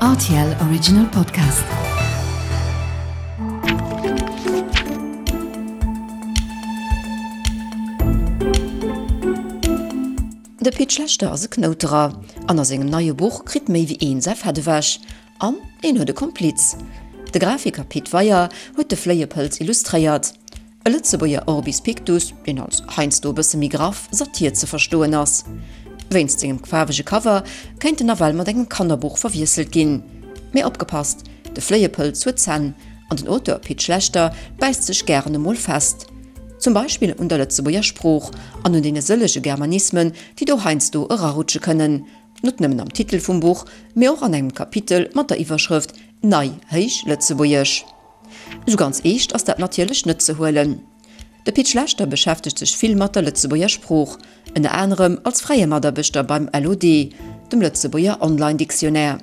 Rtl Original Podcast. De Pit Schlechter ass e Knouterer an a sengem neie Buch kritt méi wéi een säi Fett ewech. An een huet e Kompliz. De Grafiker Pit Weyer huet de Fléiepëlz illustréiert. E Lëtzebuerger Orbis Pictus, deen als heiansdo e bësse méi graff Satir ze verstoen ass. Wéinst sengem faarwege Cover kéint en nawell mat engem Kannerbuch verwiesselt ginn. Mee opgepasst, de Fléiepëlz huet Zänn an den Auteur Pit Schlechter bäisst sech gären emol fest. Zum Beispill un der Lëtzebuerger Sprooch an un deene sëllege Germanismen, déi do heiansdo erarutsche kënnen. Net nëmmen am Titel vum Buch, mee och an engem Kapitel mat der Iwwerschrëft Nei Héich Lëtzebuergesch. Esou ganz eescht ass dat natierlech net ze huelen. De Pit Schlechter beschäftegt sech vill mat der Lëtzebuerger Sprooch, ënner anerem als fräie Mataarbechter beim LOD, dem Lëtzebuerger Online Dictionnaire.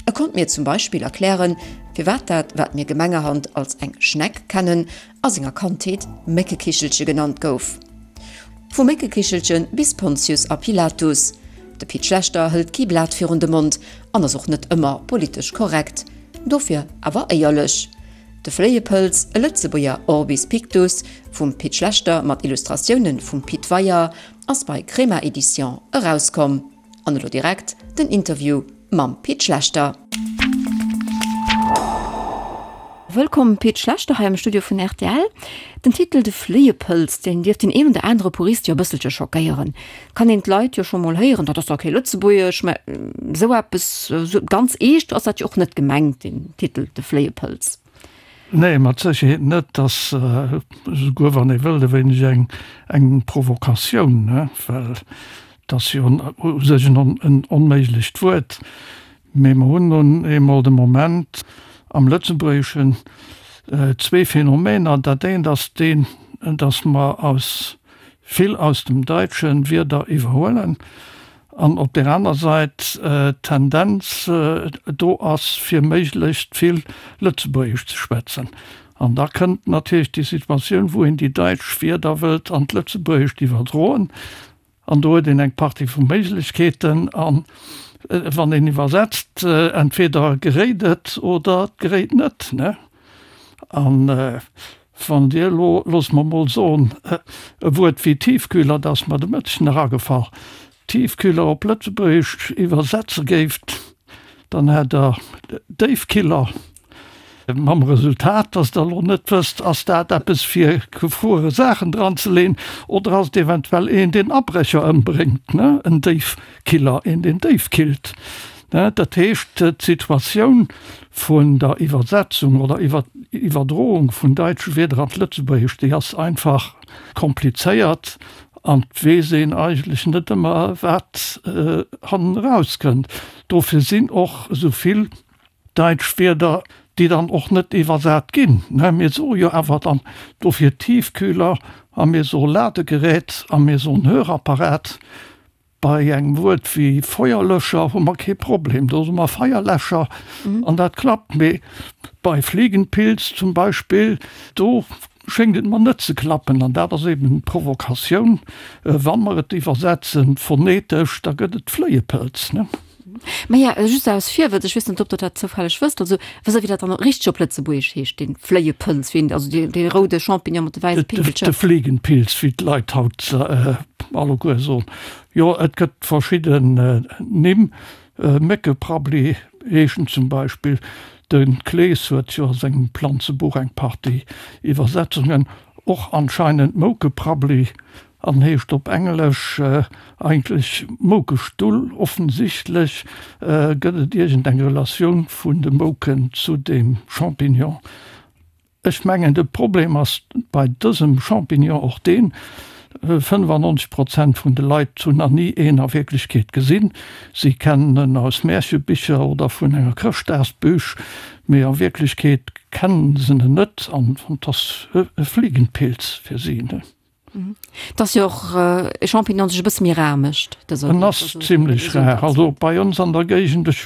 E konnt mir zum Beispill erklären, firwat dat, wat mir gemengerhand als eng Schneck kennen, a senger Kandheet Méckekichelche genannt gouf. Vu Méckekichelche bis Pontius a Pilatus, de Pit Schlechter hëlt kee Blat virun de Mond an ass och net ëmmer politesch korrekt, dofir awer éierlech. De Fléiepëlz, e Lëtzebuerger Orbis Pictus vum Pit Schlechter mat Illustratioune vum Pit Weyer, ass bei Crema Edition erauskomm. An elo direkt den Interview mam Pit Schlechter. Wëllkomm Pit Schlechter hei am Studio vun rtl. Den Titel De Fléiepëlz, deen dierft deen een oder anere Purist jo e bësselche schockéieren. Kann een d'Leit jo scho mol héieren, dat ass dach kee Lëtzebuergesch, mä esou eppes, esou ganz eescht ass dat jo och net gemengt, deen Titel De Fléiepëlz. Nee, mat Sécherheet net. Et ass, esouguer wann ee wëllt, e wéineg eng, eng Provokatioun, ne, well et ass jo u sech en onméiglecht Wuert. Mee mer hunn nun eemol de Moment am Lëtzebuergeschen zwee Phänomener. Dat eent ass deen, datt mer aus vill aus dem Daitsche Wierder iwwerhuelen an op där aner Sait d'Tendenz do ass, fir méiglechst vill Lëtzebuergesch ze schwätzen. An da kënnt natierlech déi Situatioun, wou een déi daitsch Wierder wëllt an d'Lëtzebuergescht iwwerdroen. An do huet een eng Partie vu Méiglechkeeten. A wann een iwwersetzt, entweder geréit et oder et geréit net. An wann Dir elo, loosse mer emol soen, e Wuert wéi Tiefkühler, dat ass mer de Mëtteg nach agefall, Tiefkühler op Lëtzebuergesch iwwersetze géift, Dann hätt der Déifkiller, mam Resultat, dass der elo net wësst, ass dat eppes fir gefruere Saachen dran ze leen oder ass et eventuell een, deen Abrécher ëmbréngt, ne, en Déifkiller, een, deen déif killt, ne. Dat heescht, d'Situatioun vun der Iwwersetzung oder Iwwerdroung vun daitsche Wierder an d'Lëtzebuergescht, déi ass einfach komplizéiert an et weess een eigentlech net ëmmer, wat hannen erauskënnt. Dofir sinn och esou vill daitsch Wierder, déi dann och net iwwersat ginn. Mir soe jo awer dann dofir Tiefkühler a mir soe Ladegerät a mir soen Hörapparat. Bei engem Wuert wéi Feuerlöscher hu mer kee Problem, do soe mer Feierläscher an dat klappt. Mee bei Fliegenpilz zum Beispill, do schéngt et mer net ze klappen. An dat ass eben d'Provokatioun, Wa mer et iwwersetzen phonetesch, da gëtt et Fléiepëlz, ne? Maja, just aus Virwëtz, ech weess net, ob Der dat zoufälleg wësst, also wësst Der, wéi dat dann richteg op Lëtzebuergesch heescht, dee Fléiepëlz, wéi en, also dee, dee roude Champignon mat de wäisse Pinkelcher? De Fliegenpilz, wéi d'Leit haut alleguer soen. Jo, et gëtt verschidden Nimm, Méckeprabbli heescht en zum Beispill. De Klees huet jo a sengem Planzebuch eng Partie Iwwersetzungen, och anscheinend Moukeprabbli an heescht op Englesch eigentlech Moukestull. Offensichtlech gëtt et iergend eng Relatioun vun de Mouken zu deem Champignon. Ech mengen de Problem ass bei dësem Champignon och deen, 95 Prozent vun de Leit hunn nach ni een a Wierklechkeet gesinn. Si kennen en aus Märchebicher oder vun enger Chrëschtdagsbüch, mee a Wierklechkeet kennen se en net an et ass e Fliegenpilz fir si. Et ass jo och e Champignon, deen sech e bësse méi rar mécht. En ass zimlech rar. Also bei ons an der Géigend, ech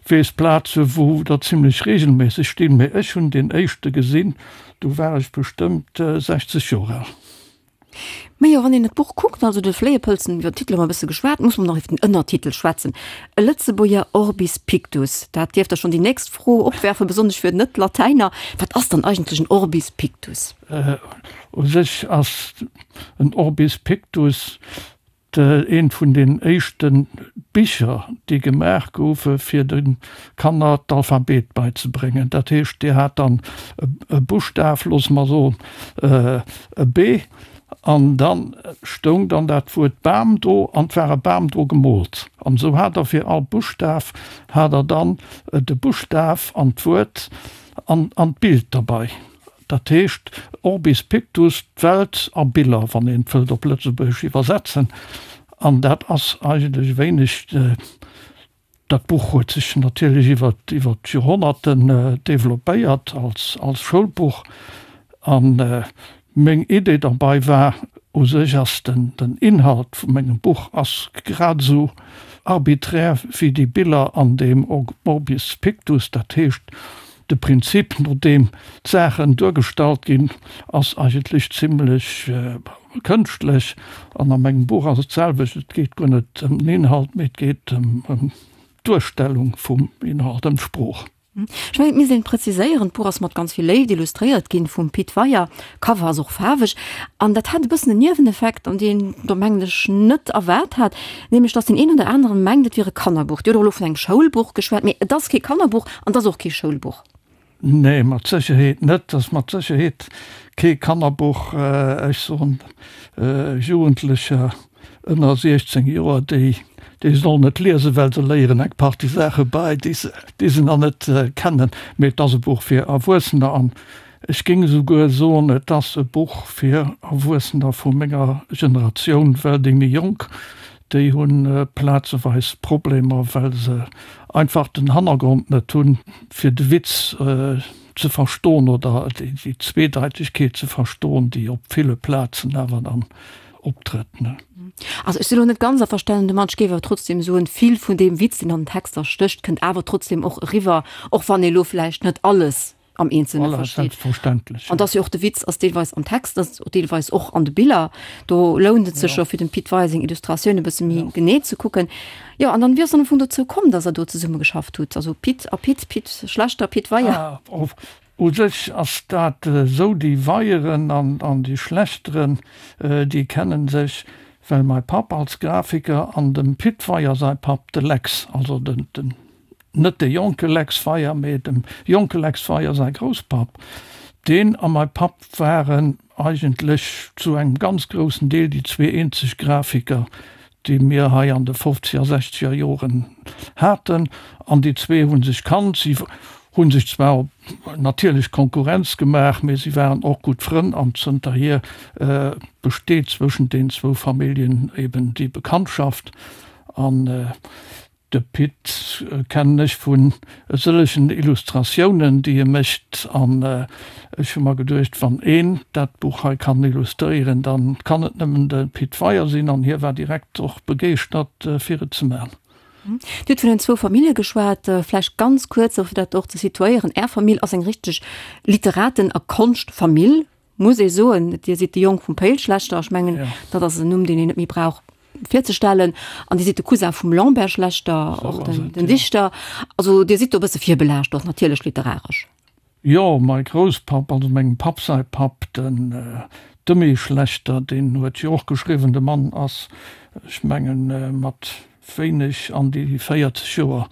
weess Plaze wou der zimlech reegelméisseg stinn, mee ech hunn deen éischte gesinn, du war ech bestëmmt 60 Joer al. Majo, wann een et Buch kuckt, also de Fléiepëlzen, iwwer den Titel hu mer e bësse geschwat, muss mer nach iwwer den Ënnertitel schwätzen, E Lëtzebuerger Orbis Pictus. Dat dierft da schonn déi nächst Fro opwerfen, besonnesch fir Net-Latäiner, Wat ass dann eigentlech en Orbis Pictus? U sech ass en Orbis Pictus Eent vun den éischte Bicher, déi gemaach goufe fir de Kanner d'Alphabet beizebréngen. Dat heescht, Dir hat dann e Buschtaf, loosse mer soen e B, an da stoung dann dat Wuert Bam do an 't war e Bam dru gemoolt. An esou hat Der fir all Buschtaf hat Der dann de Buschtaf an d'Wuert an d'Bild derbei. Dat heescht Orbis Pictus, d'Welt a Biller, wann een et wëllt op Lëtzebuergesch iwwersetzen. An dat ass eigentlech e wéineg, dat Buch huet sech natierlech iwwer iwwer d'Joerhonnerten developpéiert als als Schoulbuch. A meng Idee derbei war, u sech ass den den Inhalt vu mengem Buch ass grad esou arbiträr wéi déi Biller an deem Orbis Pictus, dat heescht, De Prinzip, no deem d'Saachen duergestallt ginn, ass eigentlech zimlech kënschtlech. An a mengem Buch ass et d'selwecht, et geet guer net ëm den Inhalt, mee et geet ëm d'Duerstellung vum Inhalt, ëm d'Sprooch. Ech mengen, et misst een präziséieren, d'Buch ass mat ganz vill Léift illustréiert ginn vum Pit Weyer, Cover ass och faarweg. An dat hat e bëssen en Nieweneffekt, an deen do mengen ech net erwaart hat, nämlech datt deen een oder aneren mengt, et wier e Kannerbuch. Dir hutt och elo vun engem Schoulbuch geschwat, mee et ass kee Kannerbuch an et ass och kee Schoulbuch. Nee, mat Sécherheet net. Et ass mat Sécherheet kee Kannerbuch. Ech soen, Jugendlecher ënner 16 Joer, déi, déi sollen et liesen, well se léieren eng Partie Saache bei, déi se, déi se nach net kennen. Mee et ass e Buch fir Erwuessener an Ech géing esouguer soen, et ass e Buch fir Erwuessener vu menger Generatioun, well déi méi Jonk, déi hu plazeweis Problemer, well se einfach den Hannergrond net hunn, fir de Witz ze verstoen oder déi Zweedeitegkeet ze verstoen, déi op ville Plazen awer dann optrëtt. Also ech sinn elo net ganz averstanen domat. Ech géif awer trotzdem soen, vill vun deem Witz, deen an den Texter stécht, kënnt awer trotzdem och eriwwer, och wann ee lo vläicht net alles am Eenzelne Voilà, versteet. selbstverständlech. An dass jo och de Witz ass deelweis am Text, ass och deelweis och an de Biller. Do lount et sech Ja. jo fir dem Pit Weyer seng Illustratioun e bësse méi Ja. genee ze kucken. Jo, an dann, wéi ass dann am Fong dozou komm, dass Der do zesumme geschafft hutt? Also Pit a Pit, Pit Schlechter, Pit Weyer. Ah, of, u sech ass dat esou, déi Weyeren an, an déi Schlechteren, déi kennen sech, well mäi Papp als Grafiker an dem Pit Weyer säi Papp, de Lex, also den, den Net de jonke Lex Weyer, mee dem jonke Lex Weyer säi Grousspapp. Deen a mäi Papp waren eigentlech zu engem ganz groussen Deel déi zwee eenzeg Grafiker, déi mir hei an de fofzeger, sechzeger Joren haten. An déi zwee hu sech kannt. Si hu sech zwar natierlech Konkurrenz gemaach, mee si waren och gutt Frënn an zënterhier besteet zwëschent den zwou Familljen eben déi Bekanntschaft. An De Pit kennen ech vun e sëllegen Illustratiounen, déi e mécht, an ech hu mer geduecht, wann een dat Buch hei kann illustréieren, da kann et nëmmen de Pit Weyer sinn, an hie war direkt och begeeschtert, fir et ze man. Dir hutt vun den zwou Famillje geschwat. Vläicht ganz kuerz, fir dat och ze situéieren, Är Famill ass eng richteg Literaten a Konschtfamill, muss ee soen. Dir sidd de Jong vum Péil Schlechter, ech mengen, dat ass en Numm, deen een net méi brauch virzestellen. An Dir sidd de Cousin vum Lambert Schlechter, och den Dichter. Also Dir sidd do e bësse virbelaascht och natierlech literaresch. Jo, mäi Grousspapp, also mengem Papp säi Papp, den Demy Schlechter, deen huet jo och geschriwwen. De Mann ass, ech mengen, mat wéineg an déi 40 Joer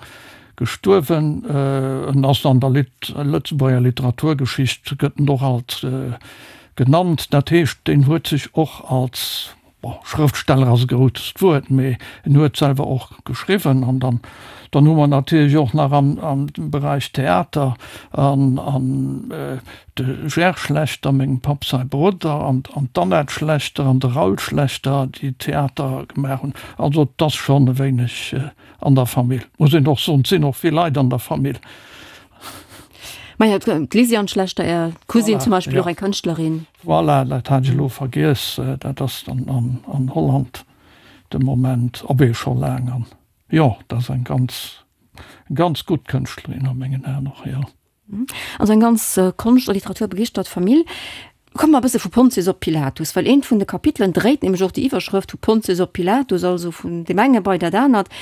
gestuerwen. En ass an der Lëtzebuerger Literaturgeschicht gëtt en och alt genannt. Dat heescht, deen huet sech och als, bon, Schrëftsteller ass e grousst Wuert, mee en huet selwer och geschriwwen. An dann, dann hu mer natierlech och nach am, am Beräich Theater an, an De Gerd Schlechter, mengem Papp säi Brudder, an d'Annette Schlechter an de Raoul Schlechter, déi Theater gemaach hunn. Also et ass schonn e wéineg an der Famill, muss een och soen. Et sinn och vill Leit an der Famill. Maja, d'Lysiane Schlechter, Är Cousine zum Beispill, och eng Kënschtlerin. Voilà, dat hat ech elo vergiess. Dat ass dann an Holland de Moment, abee scho laang. An jo, dat ass eng ganz, ganz gutt Kënschtlerin a mengen Aen och, jo. Also eng ganz Konscht a Literatur begeeschtert Famill. Komme mer e bësse vu Pontius op Pilatus, well eent vun de Kapitelen dréit nämlech och déi Iwwerschrëft vu Pontius op Pilatus, also vun deem enge bei dat anert.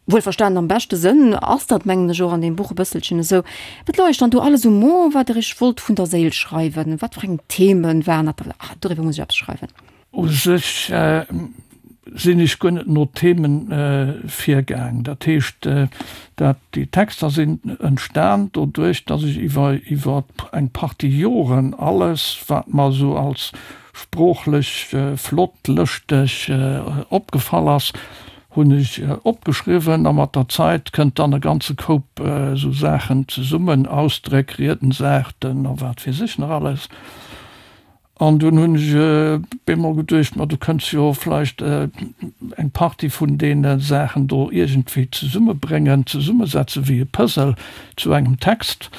Wuelverstanen am beschte Sënn ass dat, mengen ech, och an deem Buch e bësselchen esou. Wat louch dann do alles um Mo, wat Der Iech wollt vun der Séil schreiwen? Wat fir eng Themen waren dat? Ah, doriwwer muss ech eppes schreiwen. U sech sinn ech guer net no Themen virgaang. Dat heescht, dat déi Texter sinn entstan doduerch, datt ech iwwer iwwer eng Partie Joren alles, wat mer esou als sproochlech flott, lëschteg opgefall ass, hunn ech opgeschriwwen. A mat der Zait kënnt dann e ganze Koup esou Saachen zesummen, Ausdréck, Riedensaarten a wat weess ech nach alles. An dunn hunn ech bemol geduecht, ma du kënns jo vläicht eng Partie vun deene Saachen do iergendwéi zesummebréngen, zesummesetze wéi e Puzzle zu engem Text.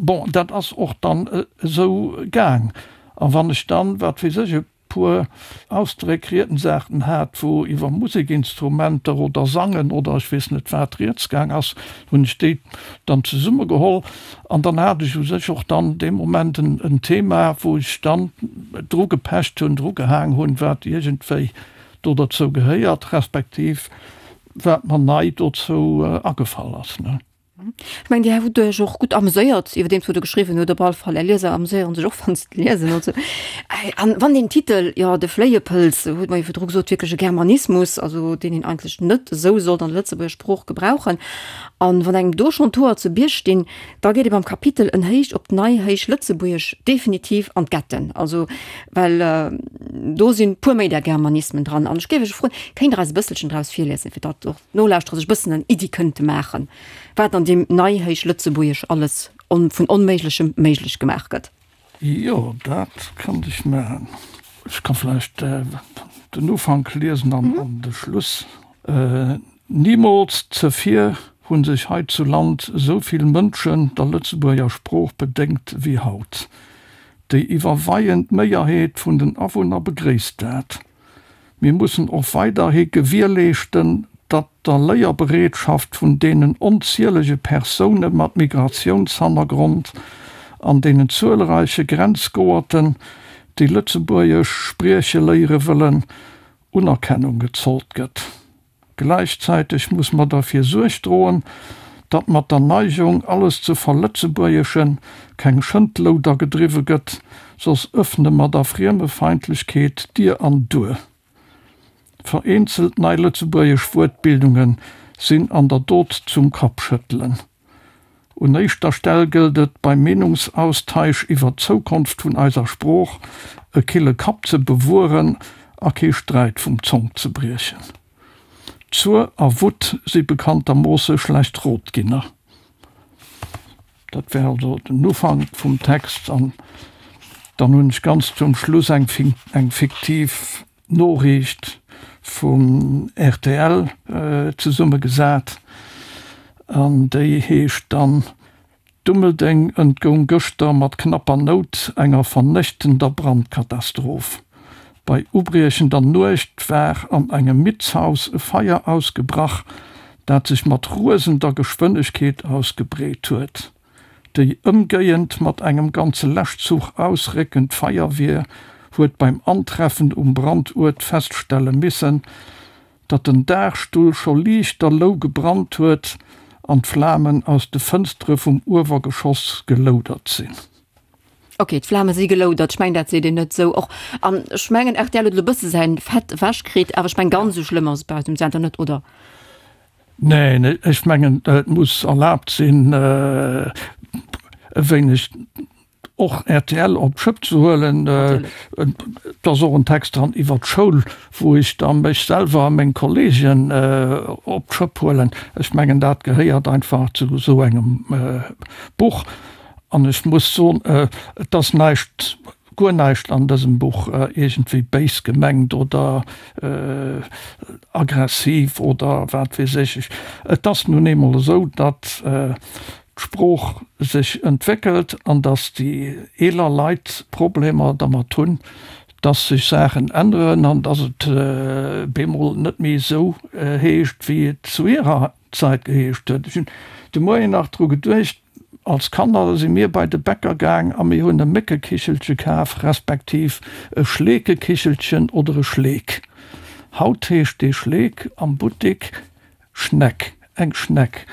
Bon, dat ass och dann esou gaang. A wann ech dann, wat weess ech, e puer Ausdréck, Riedensarten hat, wou iwwer Musekinstrumenter oder Sangen oder ech weess net wat rieds gaang ass, hunn ech déi dann zesummegeholl an dann hat ech u sech och dann dee Moment en Thema, wou ech dann dru gepecht hunn, dru gehaang hunn, wat iergendwéi do derzou gehéiert, respektiv wat mer nei dozou agefall ass. Ech mengen, Dir hutt Iech och gutt ameséiert, iwwerdeems wou Der geschriwwen hutt. Op alle Fall, Är Lieser ameséiere sech och, wann se et liesen. Also, an wann deen Titel, jo, De Fléiepëlz, huet mer jo virdru gesot, wierklech e Germanismus, also deen een eigentlech net esou sollt an der Lëtzebuerger Sprooch gebrauchen. An wann engem do schonn d'Hoer zu Bierg stinn, da geet ee beim Kapitel En Héich op d'Neihéichlëtzebuergesch definitiv an d'Getten. Also, well do sinn puer méi där Germanismen dran. An ech géif Iech froen, kéint Der eis e bësselchen draus virliesen, fir datt och d'Nolauschterer sech e bëssen eng Iddi kënnte maachen, wat an deem Neihéichlëtzebuergesch alles vun Onméiglechem méiglech gemaach gëtt? Jo, dat kann ech maachen. Ech ka vläicht den Ufank liesen an de Schluss. Nimools zevir hu sech hei zu Land esou vill Mënschen der Lëtzebuerger Sprooch bedéngt wéi haut. Déi iwwerweiend Méierheet vun den Awunner begréisst dat. Mir mussen och weiderhi gewierleeschten, datt der Léierbereetschaft vun deenen onzielege Persoune mat Migratiounshannergrond an deenen zuelreiche Grenzgoerten, déi Lëtzebuergesch sprieche léiere wëllen, Unerkennung gezollt gëtt. Gläichzäiteg muss mer derfir Suerg droen, datt mat der Neigung, alles ze verlëtzebuergeschen, keng Schëndlouder gedriwwe gëtt, soss ëffne mer der Friemefeindlechkeet Dier an Duer. Vereenzelt nei lëtzebuergesch Wuertbildunge sinn an der Dot zum Kappschëttelen. Un éischter Stell gëllt et, beim Meenungsaustaisch iwwer d'Zoukonft vun eiser Sprooch e kille Kapp ze bewueren a kee Sträit vum Zonk ze briechen. Zuer a Wutt si bekanntermoosse schlecht Rotginner. Dat wär also den Ufank vum Text. An dann hunn ech ganz zum Schluss eng fiktiv Noriicht vum rtl zesummegesat an déi heescht dann, Dummeldeng entgoung gëschter mat knapper Nout enger vernéchtender Brandkatastroph. Bei ubriechender Nuecht war an engem Mietshaus e Feier ausgebrach, dat sech mat rosender Geschwënnegkeet ausgebreet huet. Déi ëmgéiend mat engem ganze Läschzuch ausréckend Feierwier huet beim Antreffen um Branduert feststelle missen, datt den Daachstull scho liichterlou gebrannt huet an d'Flamen aus de Fënstere vum Uewergeschoss geloudert sinn. Ok, d'Flame si geloudert, ech mengen dat seet een net esou och. An ech mengen rtl huet elo e bësse säin Fett ewech kritt, awer ech mengen ganz esou schlëmm ass et bei eis um Sender net, oder? Neen, ech mengen, et muss erlaabt sinn, e wéineg och rtl op d'Schëpp ze huelen. Et ass och en Text dran iwwer d'Schoul, wou ech da mech selwer a meng Kolleegen op d'Schëpp huelen. Ech mengen, dat gehéiert einfach zu esou engem Buch. An ech muss soen, et ass näischt guer näischt an dësem Buch iergendwéi béis gemengt oder aggressiv oder wat weess ech. Et ass nun eemol esou, datt d'Sprooch sech entwéckelt an datt déi eeler Leit Problemer dermat hunn, datt sech Saachen änneren an datt et bemol net méi esou heescht, wéi et zu hirer Zäit geheescht huet. Ech hunn de Moien nach dru geduecht. Als Kanner si mir bei de Bäcker gaang a mir hunn e Méckekichelche kaf, respektiv e Schleekekichelchen oder e Schleek. Haut heescht dee Schleek am Buttik Schneck, eng Schneck.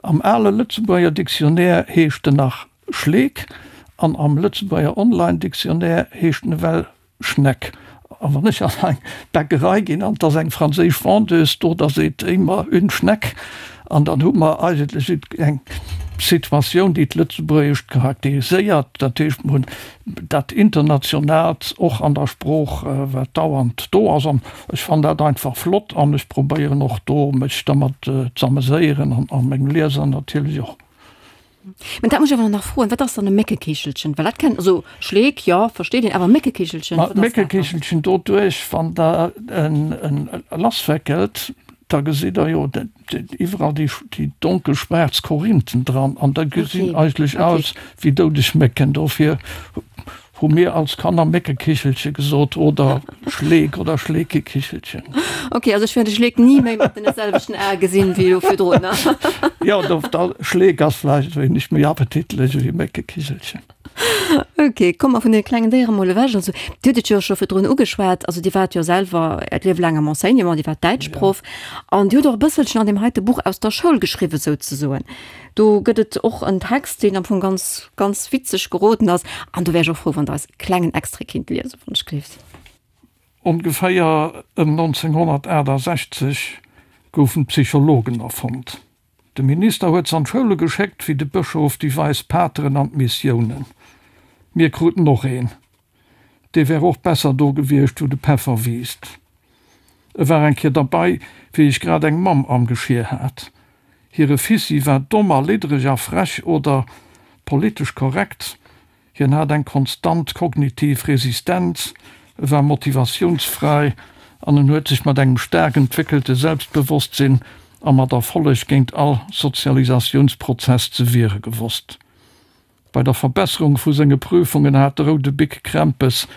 Am ale Lëtzebuerger Dictionnaire heescht en nach Schleek an am Lëtzebuerger Online-Dictionnaire heescht en ewell Schneck. A wann ech an eng Bäckerei ginn an et ass eng franséisch Vendeuse do, da seet déi mer une Schneck. An dann hu mer eigentlech eng Situatioun, déi d'Lëtzebuergescht charakteriséiert. Dat heescht, mer hunn dat Internationaalt och an der Sprooch, wat dauernd do ass. An ech fannen dat einfach flott an ech probéieren och do, mech dermat z'ameséieren a meng Lieser natierlech och. Mä dat muss ech awer nach froen, Wat ass dann e Méckekichelchen? Well dat kennt, also Schleek, jo, versteet een, awer Méckekichelchen, wat ass dat dann? Méckekichelchen, doduerch, wann Der en lasswéckelt, da gesitt Der jo iwwerall déi donkel schwaarz Korinthen dran an da gesinn eigentlech aus wéi doudeg Mécken. Dofir Hu mir als Kanner Méckekichelche gesot oder Schleek oder Schleekekichelchen. Ok, also ech wäert de Schleek ni méi mat deene selwechten Ae gesinn wéi elo virdrun. Jo, do, da, Schleek ass vläicht e wéineg méi appetitlech ewéi Méckekichelchen. Ok, komme mer vun deene klengen Déiere mol ewech. Also, Dir hutt et jo scho virdrun ugeschwat, also Dir waart jo selwer Äert Liewe laang am Enseignement, Dir waart Däitschproff an Dir hutt och e bësselchen an deem heite Buch aus der Schoul geschriwwen souzesoen. Do gëtt et och en Text, deen am Fong ganz, ganz witzeg geroden ass. An do wär ech och frou, wann Der eis e klengen Extrait kinnt liesen, wann ech gleeft. Ongeféier ëm 1968 goufen d'Psychologen erfonnt. De Minister huet se an d'Schoule geschéckt, wéi de Bëschof déi weis Pateren an d'Missiounen. Mir kruten och een. Dee wär och besser do gewiescht, wou de Peffer wiisst. E war eng Kéier derbei, wéi ech grad eng Mamm am Geschier hat. Hire Fissi war domm a liddreg a frech oder politesch korrekt, hien hat eng konstant kognitiv Resistenz, e war motivatiounsfräi an en huet sech mat engem staark entwéckelte Selbstbewosstsinn a mat Erfolleg géint all Sozialisatiounsprozess ze wiere gewosst. Bei der Verbesserung vu senge Prüfungen hat de roude Bic Krämpes,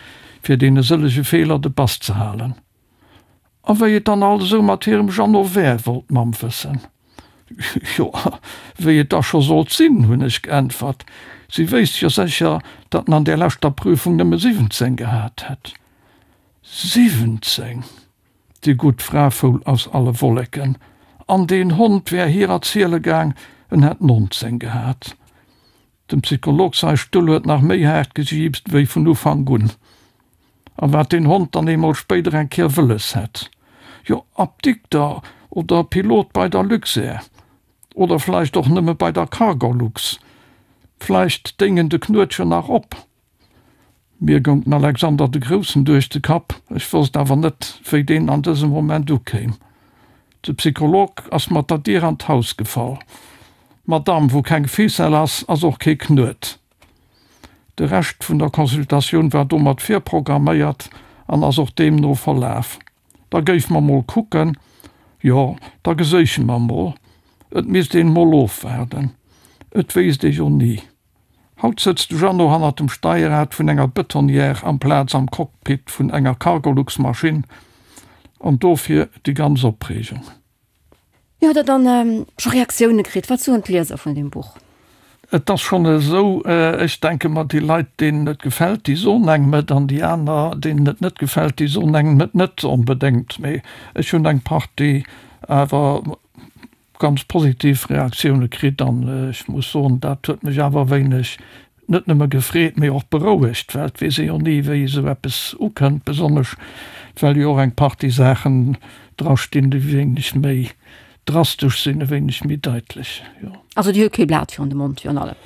fir deene sëllege Feeler de Bass ze halen. A wéi et dann alt esou mat hirem Jeannot wär, wollt d'Mamm wëssen. Jo, wéi et da scho sollt sinn, hunn ech geäntwert. Si wéisst jo sécher, datt en an där leschter Prüfung nëmme 17 gehat hätt. 17! Déi gutt Fra foul aus alle Wolleken. An deen Hond wär hir erziele gaang, en hätt 19 gehat. Dem Psycholog sai Stull huet nach méi haart gejiipst wéi vun Ufank un. A wat deen Hond dann eemol spéider eng Kéier wëlles hätt? Jo, Apdikter oder Pilot bei der Luxair. Oder vläicht och nëmme bei der Cargolux. Vläicht déing en de Knuetchen nach op. Mir goung den Alexander de Groussen duerch de Kapp, ech wosst awer net, wéi deen an dësem Moment ukéim. De Psycholog ass mat der Dier an d'Haus gefall. Madame, wou keng Ficelle ass, ass och kee Knuet. De Rescht vun der Consultatioun war domat virprogramméiert an ass och deemno verlaf. Da géife mer mol kucken. Jo, da geséiche mer mol. Et misst een mol ofwaarden. Et wéisst ee jo ni. Haut sëtzt de Jeannot hannert dem Steierrad vun enger Betonnière amplaz am Cockpit vun enger Cargolux-Maschinn, an dofir déi ganz Opreegung. Jo, hutt Der dann scho Reaktioune kritt? Wat soen d'Lieser vun deem Buch? Et ass schonn esou, ech denke mer, déi Leit, deenen et gefält, déi soen engem et, an déi aner, deenen et net gefält, déi soen engem et net onbedéngt. Mee ech hunn eng Partie awer ganz positiv Reaktioune kritt an ech muss soen, dat huet mech awer e wéineg net nëmme gefreet, mee och berouegt, well et weess ee jo ni, wéi esou eppes ukënnt, besonnesch well jo och eng Partie Saachen dra stinn, déi e wéineg méi drastesch sinn, e wéineg méi daitlech, jo. Also Dir hutt kee Blat virun de Mond virun allem?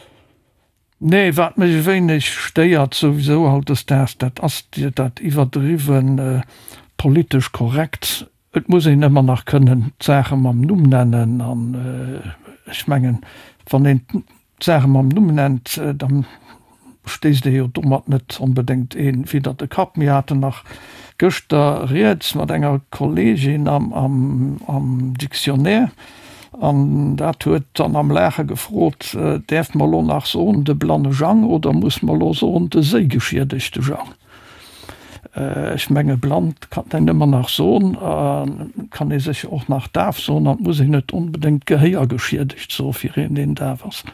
Nee, wat mech e wéineg stéiert souwisou hautdesdaags, dat ass dat iwwerdriwwe politesch korrekt. Et muss een ëmmer nach kënnen d'Saache mam Numm nennen. An ech mengen, wann een d'Saache mam Numm nennt, da stéisst ee jo domat net onbedéngt ee widder de Kapp. Mir haten nach gëschter rieds mat enger Kolleegin am Dictionnaire an dat huet dann am Laache gefrot, Däerf mer elo nach soen de blanne Jang oder muss mer elo soen de séigeschiedegte Jang? Ech menge blann kann een ëmmer nach soen, kann ee sécher och nach daf soen an et muss een net onbedéngt gehéiergeschiedegt soe fir een, deen daf ass.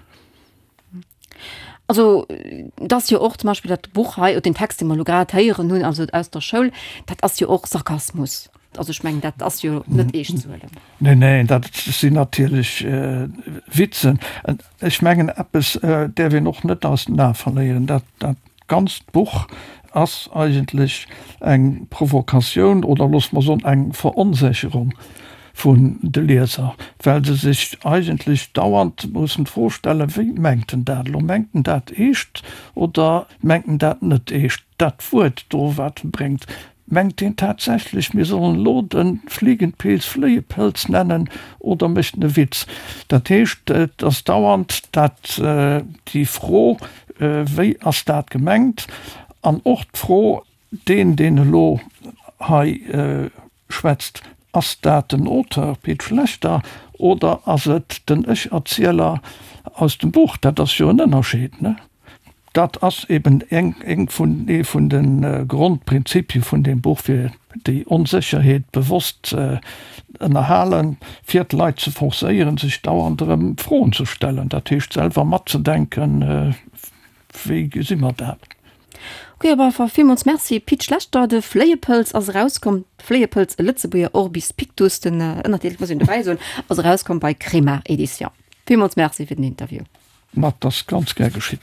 Also et ass jo och zum Beispill dat Buch hei, oder den Text, dee mer elo grad héieren hunn, also aus der Schoul, dat ass jo och Sarkasmus. Also ech mengen, dat ass jo net eescht ze huelen. Neen, neen, dat sinn natierlech Witzen. Ech mengen, eppes däerf een och net aus den Ae verléieren, dat dat ganzt Buch ass eigentlech eng Provokatioun oder loosse mer soen eng Veronsécherung vun de Lieser, well se sech eigentlech dauernd mussen d'Fro stellen, Wéi mengt en dat elo? Mengt en dat eescht oder mengt en dat net eescht? Dat Wuert do, wat e bréngt, mengt deen tatsächlech, mir sollen elo de Fliegenpilz Fléiepëlz nennen oder mécht en e Witz? Dat heescht, et ass dauernd dat, déi Fro, Wéi ass dat gemengt? An och d'Fro, Deen, deen elo hei schwätzt, ass dat den Auteur Pit Schlechter oder ass et den Ech-Erzieler aus dem Buch? Dat ass jo en Ënnerscheed, ne? Dat ass eben eng vun, ee vun de Grondprinzipie vun deem Buch, fir déi Onsécherheet bewosst ze ënnerhalen, fir d'Leit ze forcéieren, sech dauernd erëm Froen ze stellen, dat heescht selwer matzedenken, Wéi gesi mer dat? Ok, op alle Fall villmools Merci Pit Schlechter. De Fléiepëlz ass erauskomm, Fléiepëlz, e Lëtzebuerger Orbis Pictus, den Ënnertitel muss een dobäi soen, ass erauskomm bei Kremart Edition. Villmools Merci fir den Interview. Ma 't ass ganz gär geschitt.